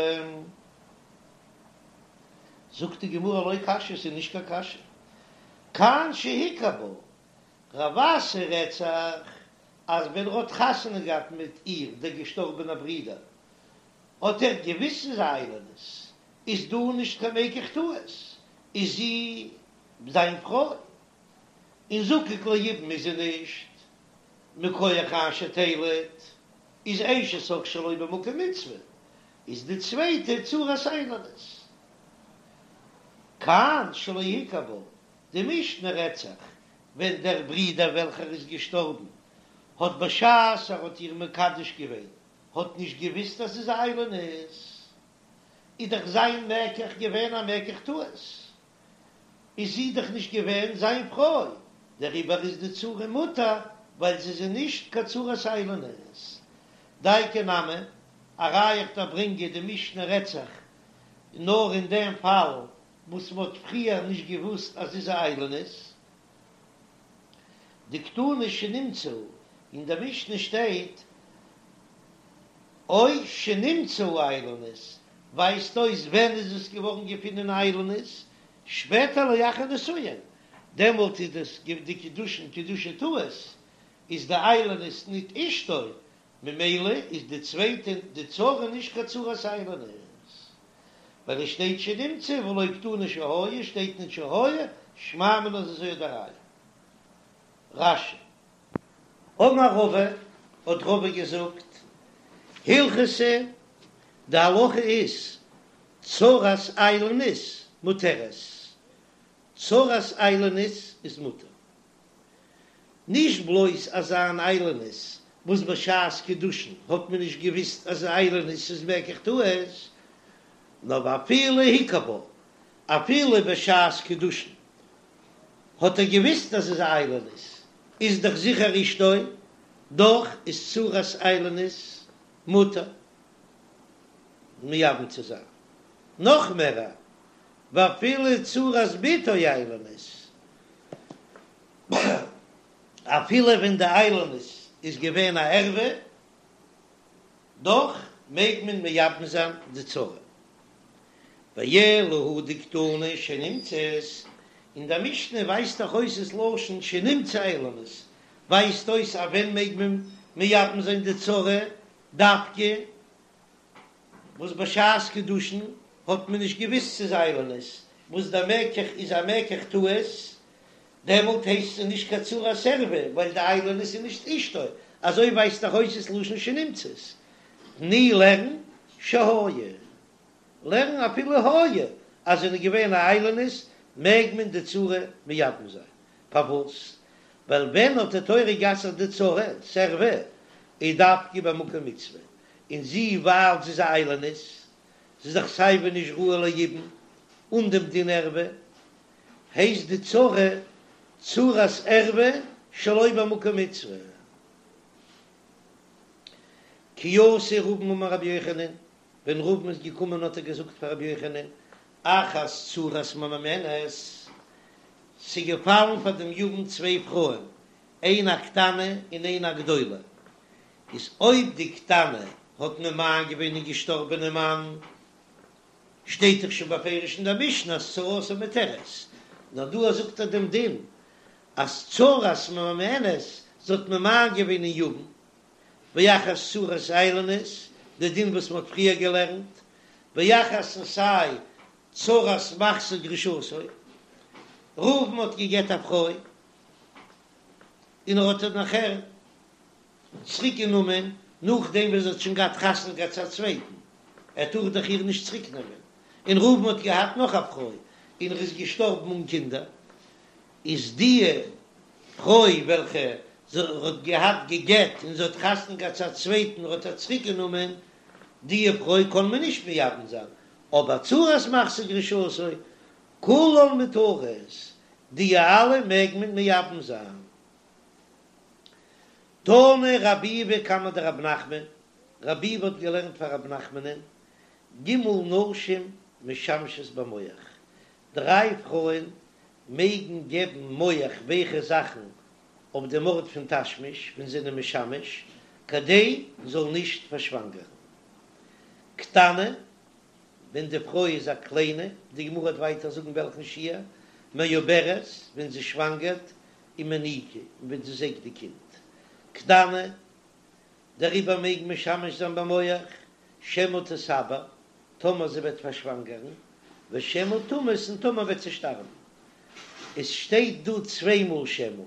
זאגט די גמרא לא קשיא, ס'איז נישט קיין קשיא, כאן שהכיר בה, רב אסי רעדט זיך אז ווען ער האט חתונה געהאט מיט איר דער געשטארבענער ברודער האט ער געוויסט ס'איז א איילונית, איז דא נישט קיין מקח טעות, איז זי זיין פרוי, און זקוק ליבום איז זי נישט, מכח אשר תלד, איז אשת אח שלא במקום מצוה, איז די צווייטע צרת איילונית. כאן שלא הכיר בה, די משנה רעדט זיך ווען דער ברודער וועלכער איז געשטארבן האט בשעת ער האט איר מקדש געווען האט נישט געוויסט אז ס'איז א איילונית, איז דאך זיין מקח געווען א מקח טעות, איז זי דאך נישט געווען זיין פרוי, דעריבער איז די צרה מותר ווייל זי איז נישט קיין צרת איילונית. דייקא נמי, א ראיה איך דארף ברענגען די משנה רעדט זיך נאר אין דעם פאל וואס מ'האט פריער נישט געוואוסט אז זי איז א איילונית. דקתני שנמצאו, אין דער משנה שטייט או שנמצאו איילונית, ווייזט אויס ווען איז עס געווארן געפונען איילונית, שפעטער לאחר נישואין, דעמאלט איז דאס די קידושין קידושי טעות, איז די איילונית ניט אשתו, ממילא איז די צווייטע די צרה נישט קיין צרת איילונית, ווייל עס שטייט שנמצאו ולא קתני שהיה, שטייט ניט שהיה, שמע מינה איז אזוי די ראיה. רש"י. אמר רבא, האט רבא געזאגט, הלכתא, די הלכה איז, צרת איילונית מותרת, צרת איילונית איז מותר. נישט בלויז אזא אן איילונית וואס בשעת קידושין האט מען נישט געוויסט אז איילונית איז מקח טעות, נאר ואפילו הכיר בה, אפילו בשעת קידושין האט ער געוויסט אז ס'איז א איילונית, איז דאך זיכער אשתו, דאך איז צרת איילונית מותר מייבם צו זיין. נאך מער, ואפילו צרת בתו איילונית, אפילו ווען די איילונית איז געווען א ערווה, דאך מעג מען מייבם זיין די צרה. ואלא הא דקתני שנמצאת, אין דער משנה ווייזט דאך אויס עס לשון שנמצאה איילונית, ווייזט אויס אז ווען מעג מען מייבם זיין די צרה, דווקא וואס בשעת קידושין האט מען נישט געוויסט ס'איז איילונית, וואס דער מקח איז א מקח טעות, דעמאלט הייסט עס נישט קיין צרת ערווה, ווייל די איילונית איז נישט אשתו, אזוי ווייזט דאך אויס עס לשון שנמצאת. תני לערן שהיה, לערן אפילו היה, אז זענען געווען א איילונית מעג מען די צרה מייבם זיין, פארוואס? ווייל ווען האט די תורה גע'אסר'ט די צרת ערווה איז דווקא במקום מצוה, און זי ווייל זי איז א איילונית, זי איז דאך סייווי נישט ראוי ליבום אן דעם דין ערווה, הייסט די צרה צרת ערווה שלא במקום מצוה. כי אתא רבין אמר רבי יוחנן, ווען רבין איז געקומען האט ער געזאגט פאר רבי יוחנן, אחת צרת ממאנת, ס'איז געפאלן פאר דעם יבם צוויי פרויען, איינע א קטנה און איינע א גדולה. איז אויב די קטנה האט ממאן געווען אין געשטארבענע מאן, שטייט דאך שוין בפירוש אין דער משנה אז צרתה מותרת, נאר דא זאגט ער דעם דין אז צרת ממאנת, זי האט ממאן געווען אין יבם, ואחת צרת איילונית, די דין וואס מען האט פריער געלערנט, ואחת און סיי צרת מחזיר גרושתו, ראובן האט געגעט א פרוי און ער האט איר נאכער צוריק גענומען נאכדעם וואס זי האט שוין געהאט חתונה געהאט צו א צווייטן, ער טאר דאך איר נישט צוריק נעמען, און ראובן האט געהאט נאך א פרוי און ער איז געשטארבן אן קינדער, איז די פרוי וועלכע זי האט געהאט גע'גט און זי האט חתונה געהאט צו א צווייטן האט ער צוריק גענומען, די פרוי קען מען נישט מייבם זיין, אבער צרת מחזיר גרושתו כולן מותרות, די אלע מעג מען מייבם זיין. תנא רב ביבי קמיה דרב נחמן, רב ביבי האט געלערנט פאר רב נחמנ'ן, ג' נשים משמשות במוך, דריי פרויען מעגן געבן מוך ווייכע זאכן אויף דעם ארט פון תשמיש ווען זיי זענען משמש, כדי זאל נישט פארשוואנגערן. קטנה, ווען די פרוי איז א קליינע, די גמרא וועט ווייטער זאגן וועלכן שיעור, מעוברת, ווען זי שוואנגערט, ומניקה, און ווען זי זייגט די קינד. קטנה, דעריבער מעג משמש זיין במוך, שמא תתעבר, טאמער זי וועט פארשוואנגערן, ושמא תמות, און טאמער וועט זי שטארבן. עס שטייט דא צוויי מאל שמא,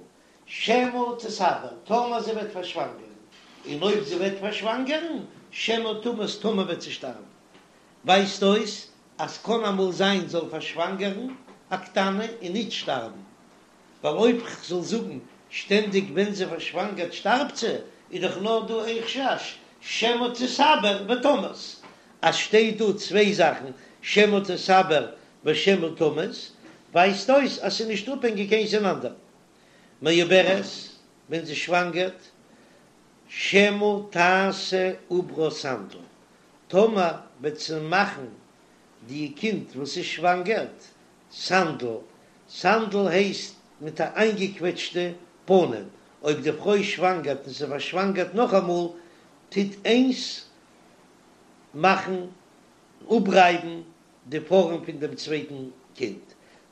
שמא תתעבר, טאמער זי וועט פארשוואנגערן, און אויב זי וועט פארשוואנגערן, שמא תמות, טאמער וועט זי שטארבן. ווייזט אויס אז קען אמאל זיין זאל פארשוואנגערן א קטנה און ניט שטארבן, ווייל אויב כ'זאל זאגן שטענדיג ווען זי פארשוואנגערט שטארבט זי, איז דאך נאר דא איין חשש שמא תתעבר ותמות, אז שטייט דא צוויי זאכן שמא תתעבר ושמא תמות, ווייזט אויס אז ס'איז נישט אפהענגיק איינס אין אנדערן. מעוברת, ווען זי שוואנגערט, שמא תעשה עוברה סנדל, טאמער וועט זי מאכן די קינד וואס איז שוואנגערט סנדל, סנדל הייסט מיט א איינגעקוועטשטע פנים, אויב די פרוי שוואנגערט און זי פארשוואנגערט נאכאמאל, טוט איינס מאכן אפרייבן די פארעם פון דעם צווייטן קינד.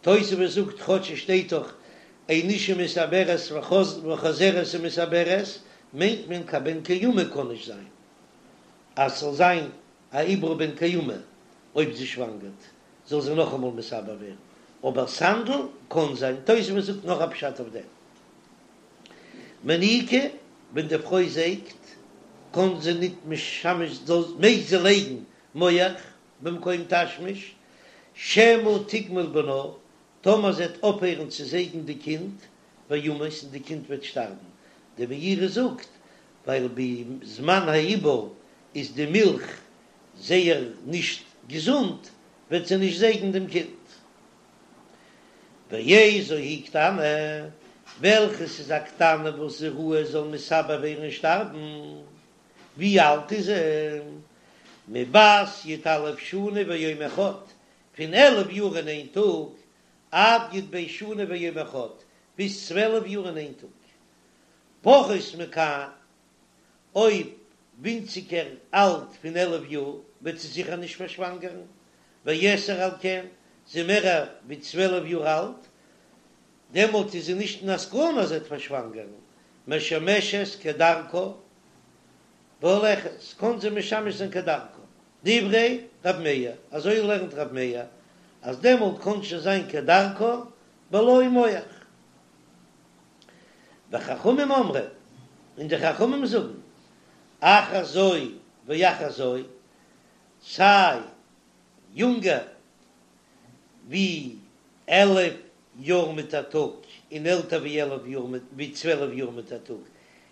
תוספות זאגט כאטש עס שטייט דאך אין אשה מתעברת וחוזרת ומתעברת, מיינט מען קיין בן קיימא קען נישט זיין אז ס'זאל זיין א עובר בן קיימא אויב זי שוואנגערט זאל זי נאכאמאל מתעבר ווערן, אבער סנדל קען זיין, תוספות זאגט נאך א פשט אויף דעם. מניקה, ווען די פרוי זייגט קען זי ניט משמש זאל מעג זי לייגן מוך במקום תשמיש, שמא תגמול בנה, טאמער זי וועט אויפהערן צו זייגן די קינד, וימות און די קינד וועט שטארבן, די מאירי זאגט ווייל בזמן העיבור איז די מילך זייער נישט געזונט, וועט זי נישט זייגן דעם קינד. ואיזו היא קטנה, וועלכעס איז א קטנה וואס איז ראוי זאל מתעבר ווערן און שטארבן, ווי אלט איז זי? מבת י"א שנה ויום אחד, פון 11 יאר און איין טאג, עד י"ב שנה ויום אחד, ביז 12 יאר און איין טאג. פחות מכאן, אויב ווינציגער אלט פון 11 יאר, וועט זי זיכער נישט פארשוואנגערן, ויתר על כן, זי מער ווי 12 יאר אלט, דעמאלט איז זי נישט אין א סכנה אז זי וועט פארשוואנגערן, משמשת כדרכה והולכת, קען זי משמש זיין כדרכה, דברי ר' מאיר, אזוי לערנט ר' מאיר, אז דעמאלט קען שוין זיין כדרכה בלא מוך. וחכמים אומרים, און די חכמים זאגן, אחת זו ואחת זו, סיי יונגער ווי 11 יאר מיט א טאג און עלטער ווי 11 יאר ווי 12 יאר מיט א טאג,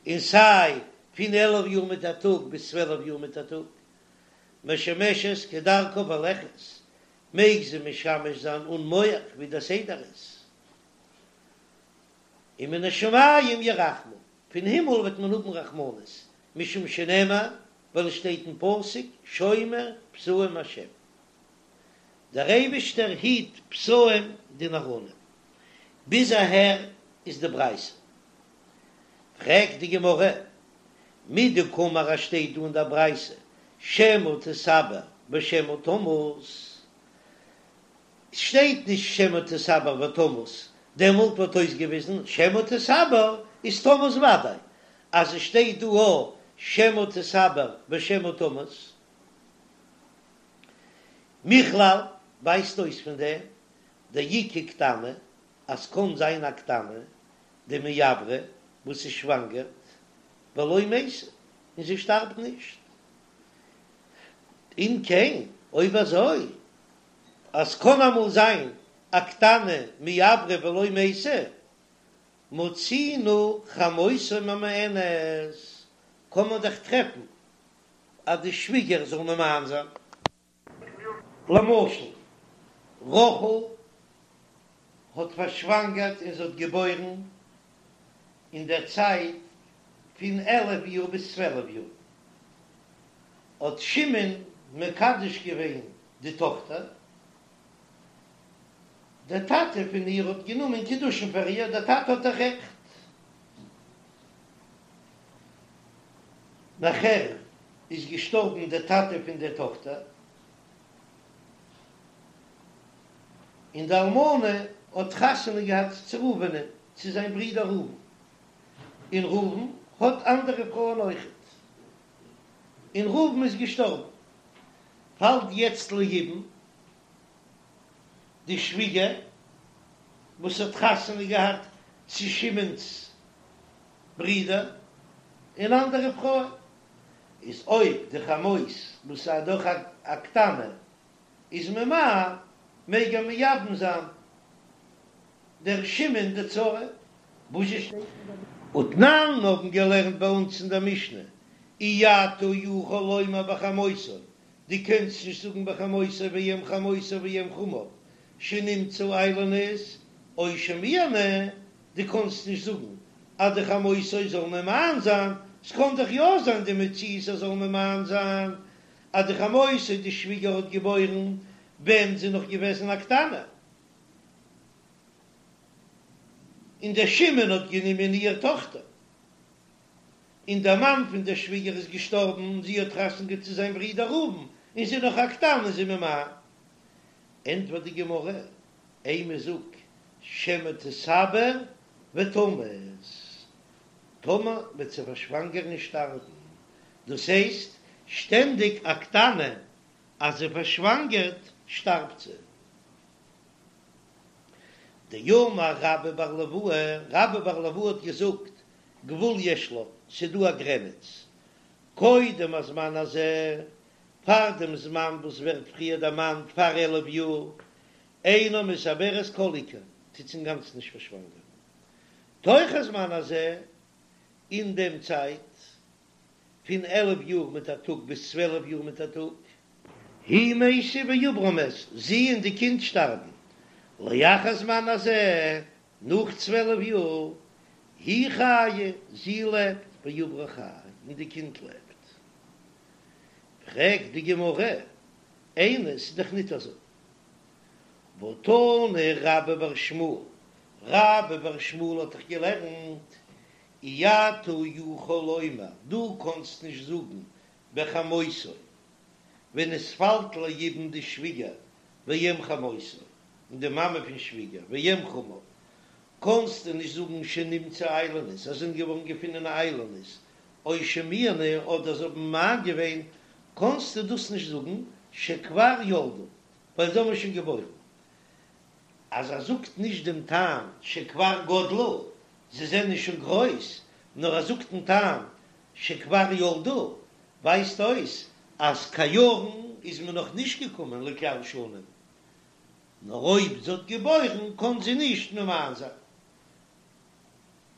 און סיי פון 11 יאר מיט א טאג ביז 12 יאר מיט א טאג, משמשת כדרכה והולכת, מעג זי משמש זיין אן מוך ווי דער סדר איז. ומן השמים ירחמו, פון הימל וועט מען האבן רחמנות, משום שנאמר, ווייל עס שטייט אין פסוק, שומר פתאים השם, דער אייבישטער היט פתאים די נאראנים. ביז אהער איז די ברייתא. פרעגט די גמרא, מדקאמר אז שטייט דא אין דער ברייתא שמא תתעבר ושמא תמות, שטייט נישט שמא תתעבר ותמות, דעמאלט וואלט אויסגעוויזן שמא תתעבר איז תמות וודאי, אז עס שטייט דא א שמא תתעבר ושמא תמות, מכלל ווייזט אויס פון דעם דאיכא קטנה אז קאן זיין א קטנה דמעברא וואס איז שוואנגערט ולא מתה און זי שטארבט נישט, אם כן אויב אזוי אז קאן אמאל זיין א קטנה מעברא ולא מתה מצינו חמותו ממאנת קען מען דאך טרעפן אז די שוויגער זאל ממאן זיין. למשל, רחל האט פארשוואנגערט און זי האט געבוירן אין דער צייט פון 11 יאר ביז 12 יאר, האט שמעון מקדש געווען די טאכטער, דער טאטע פון איר האט גענומען קידושין פאר איר, דער טאטע האט דאך רעכט. נאכער איז געשטארבן דער טאטע פון דער טאכטער, און די אלמנה האט חתונה געהאט צו ראובנ'ען, צו זיין ברודער ראובן, און ראובן האט אנדערע פרויען אויכעט, און ראובן איז געשטארבן, פאלט יעצט ליבום די שוויגער וואס האט חתונה געהאט צו שמעון'ס ברודער און אנדערע פרויען, איז אויב די חמות וואס איז דאך א קטנה איז ממאן, מעג ער מייבם זיין דער שמעון די צרה. וואס שטייט אין ותנן האבן געלערנט ביי אונז אין דער משנה, אי אתה יכול לומר בחמותו, דו קענסט נישט זאגן בחמותו ואם חמותו ואם חמיו שנמצאו איילונית או שמיאנו, דו קאנסט נישט זאגן אז די חמותו זאל ממאן זיין, ס'קאן דאך יא זיין די מציאות אז זאל ממאן זיין אז די חמותו די שוויגער האט געבוירן ווען זי נאך געוועזן א קטנה, און דער שמעון האט גענומען איהר טאכטער. און דער מאן פון דער שוויגער איז געשטארבן און זי האט חתונה געהאט צו זיין ברודער ראובן, און זי איז נאך א קטנה איז זי ממאן. ענטפערט די גמרא, אימא זאג שמא תתעבר ותמות, טאמער וועט זי פארשוואנגערן און שטארבן, דאס הייסט שטענדיג א קטנה אז זי פארשוואנגערט שטארבט זי. דאמר רבה בר ליואי, רבה בר ליואי האט געזאגט, גבול יש לה, ס'דא א גרעניץ, קודם הזמן הזה, פאר דעם זמן וואס ווערט פריער דערמאנט פאר 11 יאר, אינה מתעברת כל עיקר, טוט זי אינגאנצן נישט פארשוואנגערן. תוך הזמן הזה, אין דעם צייט פון 11 יאר מיט א טאג ביז 12 יאר מיט א טאג, היא מתה ועוברה מת, זי און די קינד שטארבן, לאחר הזמן הזה, נאך 12 יאר, היא חיה, זי לעבט, ועוברה חי, און די קינד לעבט. פרעגט די גמרא, איני, ס'איז דאך ניט אזוי. והתני רבה בר שמואל, רבה בר שמואל האט דאך געלערנט, אי אתה יכול לומר, דו קאנסט נישט זאגן בחמותו, ווען עס פאלט ליבום די שוויגער ואם חמותו, און די מאמע פון שוויגער ואם חמיו, קאנסטו נישט זאגן שנמצאו איילונית, אז זענען געווארן געפונען איילונית, או שמיאנו, אדער זיי האבן ממאן געווען, קאנסטו דאס נישט זאגן שכבר ילדו, ווייל זיי האבן שוין געבוירן. אז ער זאגט נישט דעם טעם שכבר גדלו, זיי זענען שוין גרויס, נאר ער זאגט דעם טעם שכבר ילדו, ווייזט אויס אז קיין יארן איז מען נאך נישט געקומען לכלל שנים, נאר אויב זי האט געבוירן קען זי נישט ממאן זיין.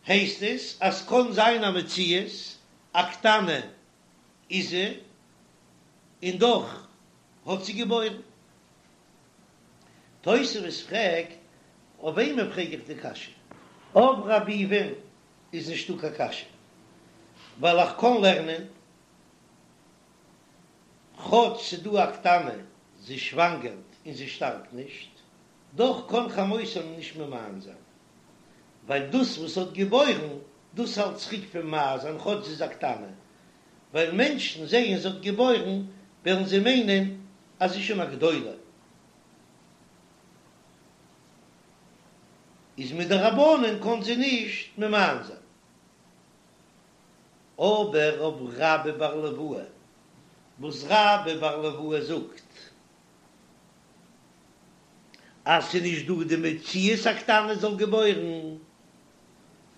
הייסט עס אז קען זיין א מציאות א קטנה איז זי און דאך האט זי געבוירן. תוספות פרעגט, אויף וועמען פרעג איך די קשיא? אויף רבי ביבי'ן איז נישטא קיין קשיא, ווייל איך קען לערנען כאטש ס'דא א קטנה, זי שוואנגערט און זי שטארבט נישט, דאך קען חמותו נישט ממאן זיין, ווייל דאס וואס האט געבוירן, דאס האלט צוריק פון ממאן זיין כאטש זי איז א קטנה. ווייל מענטשן זעען זי האט געבוירן וועלן זיי מיינען אז זי איז שוין א גדולה. איז מדרבנן קאן זי נישט ממאן זיין. אבער אויף רבה בר ליואי, וואס רבה בר ליואי זאגט אז ס'איז נישט דא די מציאות א קטנה זאל געבוירן,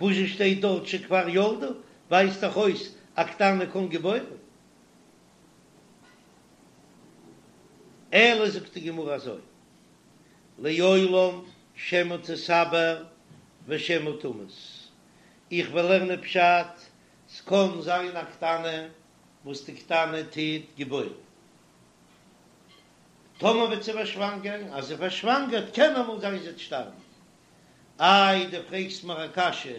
וואס זשע שטייט דארט שכבר ילדה, ווייזט דאך אויס א קטנה קען געבוירן. אלא זאגט די גמרא אזוי, לעולם שמא תתעבר ושמא תמות, איך וועל לערנען פשט, ס'קען זיין א קטנה וואס די קטנה טוט געבוירן, טאמער וועט זי פארשוואנגערן, אז זי פארשוואנגערט קען אמאל זיין זי וועט שטארבן. איי דו פרעגסט מיר א קשיא,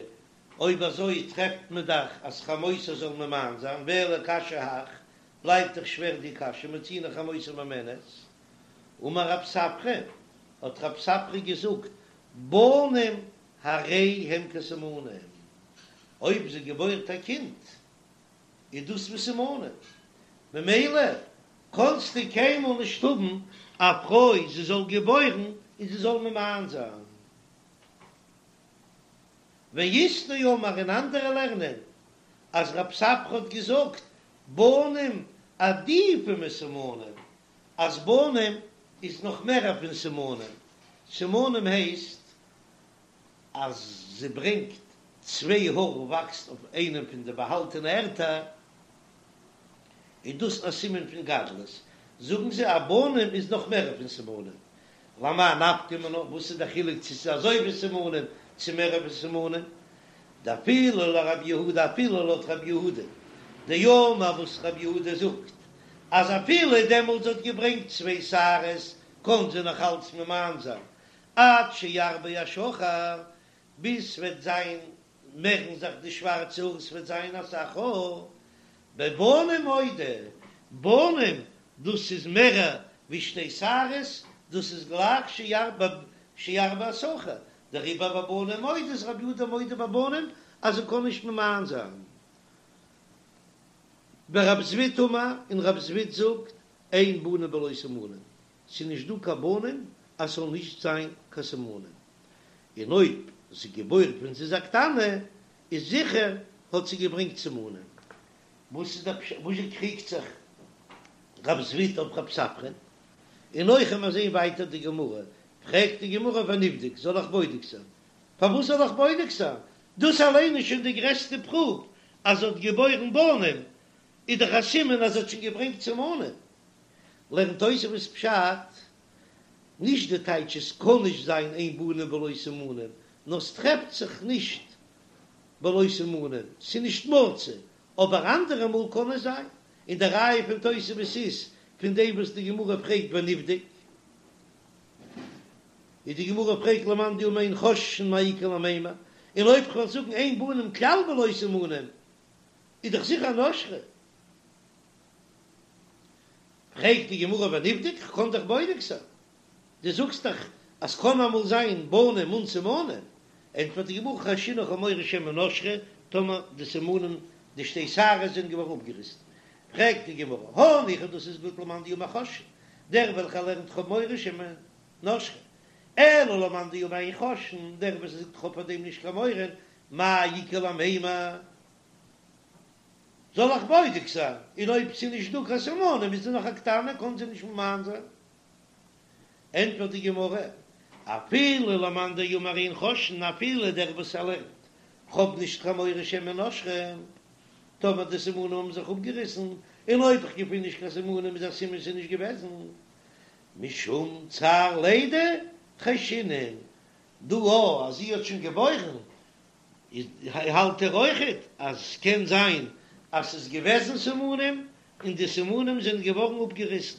אויב אזוי טרעפט מען דאך אז חמותו זאל ממאן זיין, ואלא קשיא הך, בלייבט דאך שווער די קשיא, מצינו חמותו ממאנת. אמר רב ספרא, האט רב ספרא געזאגט, בנים הרי הם כסימנים, אויב זי געבוירט א קינד איז דאס ווי סימנים, ממילא קאנסטו קיינמאל נישט האבן א פרוי זי זאל געבוירן און זי זאל ממאן זיין. ואית דאמרי און אנדערע לערנען אז רב ספרא האט געזאגט בנים עדיפי מסימנים, אז בנים איז נאך מערער פון סימנים, סימנים הייסט אז זי ברענגט צוויי האר וואקסט אויף איינעם פון די באהאלטענע ערטער, איז דאס א סימן פון גדלות, זאגן זיי אז בנים איז נאך מערער פון סימנים, למאי נפקא מינה, וואס איז די חילוק צו ס'איז אזוי ווי סימנים צו מערער פון סימנים, דאפילו לרב יהודה אפילו לויט רב יהודה דאמר וואס רב יהודה זאגט אז אפילו דעמאלטס האט געברענגט צוויי שערות קען זי נאך אלץ ממאן זיין עד שירבה השחור ביז ס'וועט זיין מערן זיך די שווארצע האר ס'וועט זיין אסאך האר בבנים מודה בנים דאס איז מערער ווי שתי שערות דאס איז גלייך שירבה השחור דעריבער בבנים מודה איז רבי יהודה מודה בבנים אז זי קען נישט ממאן זיין. ורב זביד אמר, און רב זביד זאגט, אין בנים בלא סימנים, ס'איז נישט דא קיין בנים אז ס'זאל נישט זיין קיין סימנים, און אויב זי געבוירט ווען זי איז א קטנה איז זיכער האט זי געברענגט סימנים. וואס איז דער פשט? וואס קריגט זיך רב זביד אויף רב ספרא? און אויך ווען מיר זעהן ווייטער די גמרא, פרעגט די גמרא ונבדוק, זאל איך בודק זיין? פארוואס זאל איך בודק זיין? דאס אליין איז שוין די גרעסטע פרוף אז זי האט געבוירן בנים, איז דאך א סימן אז זי האט שוין געברענגט סימנים. לערנט תוספות פשט, נישט די טייטש עס קען נישט זיין אין בנים בלא סימנים, נאר ס'טרעפט זיך נישט בלא סימנים, ס'איז נישט מצוי, אבער אנדערע מאל קען עס זיין, און די ראיה פון תוספות איז פון דעם וואס די גמרא פרעגט ונבדוק, איז די גמרא פרעגט למאן דאמר אין חוששין מאי איכא למימר, און אויב כ'וועל זאגן אין בנים כלל בלא סימנים איז דאך זיכער נשרו. פרעגט די גמרא ונבדוק, כ'קען דאך בודק זיין, דו זאגסט דאך אז ס'קען אמאל זיין בנים אן סימנים, ענטפערט די גמרא חיישינן כ'האב מורא שמא נשרו, טאמער די סימנים די שתי שערות זענען געווארן אפגעריסן, פרעגט די גמרא הניחא דאס איז גוט למאן דאמר חוששין, דער וועלכער לערנט כ'האב מורא שמא נשרו, אלא למאן דאמר אין חוששין, דער וואס זאגט כ'האב פאר דעם נישט קיין מורא, מאי איכא למימר? זאל איך בודק זיין, און אויב ס'איז נישט דא קיין סימנים איז זי נאך א קטנה קען זי נישט ממאן זיין. ענטפערט די גמרא, אפילו למאן דאמר אין חוששין, אפילו דער וואס ער לערנט, כ'האב נישט קיין מורא שמא נשרו, טאמער די סימנים האבן זיך אפגעריסן, און אויב כ'געפין נישט קיין סימנים איז א סימן ס'איז נישט געוועזן, משום צער לידה חיישינן, דא א אז זי האט שוין געבוירן איז האלט ער אויכעט אז ס'קען זיין אז ס'איז געוועזן סימנים און די סימנים זענען געווארן אפגעריסן.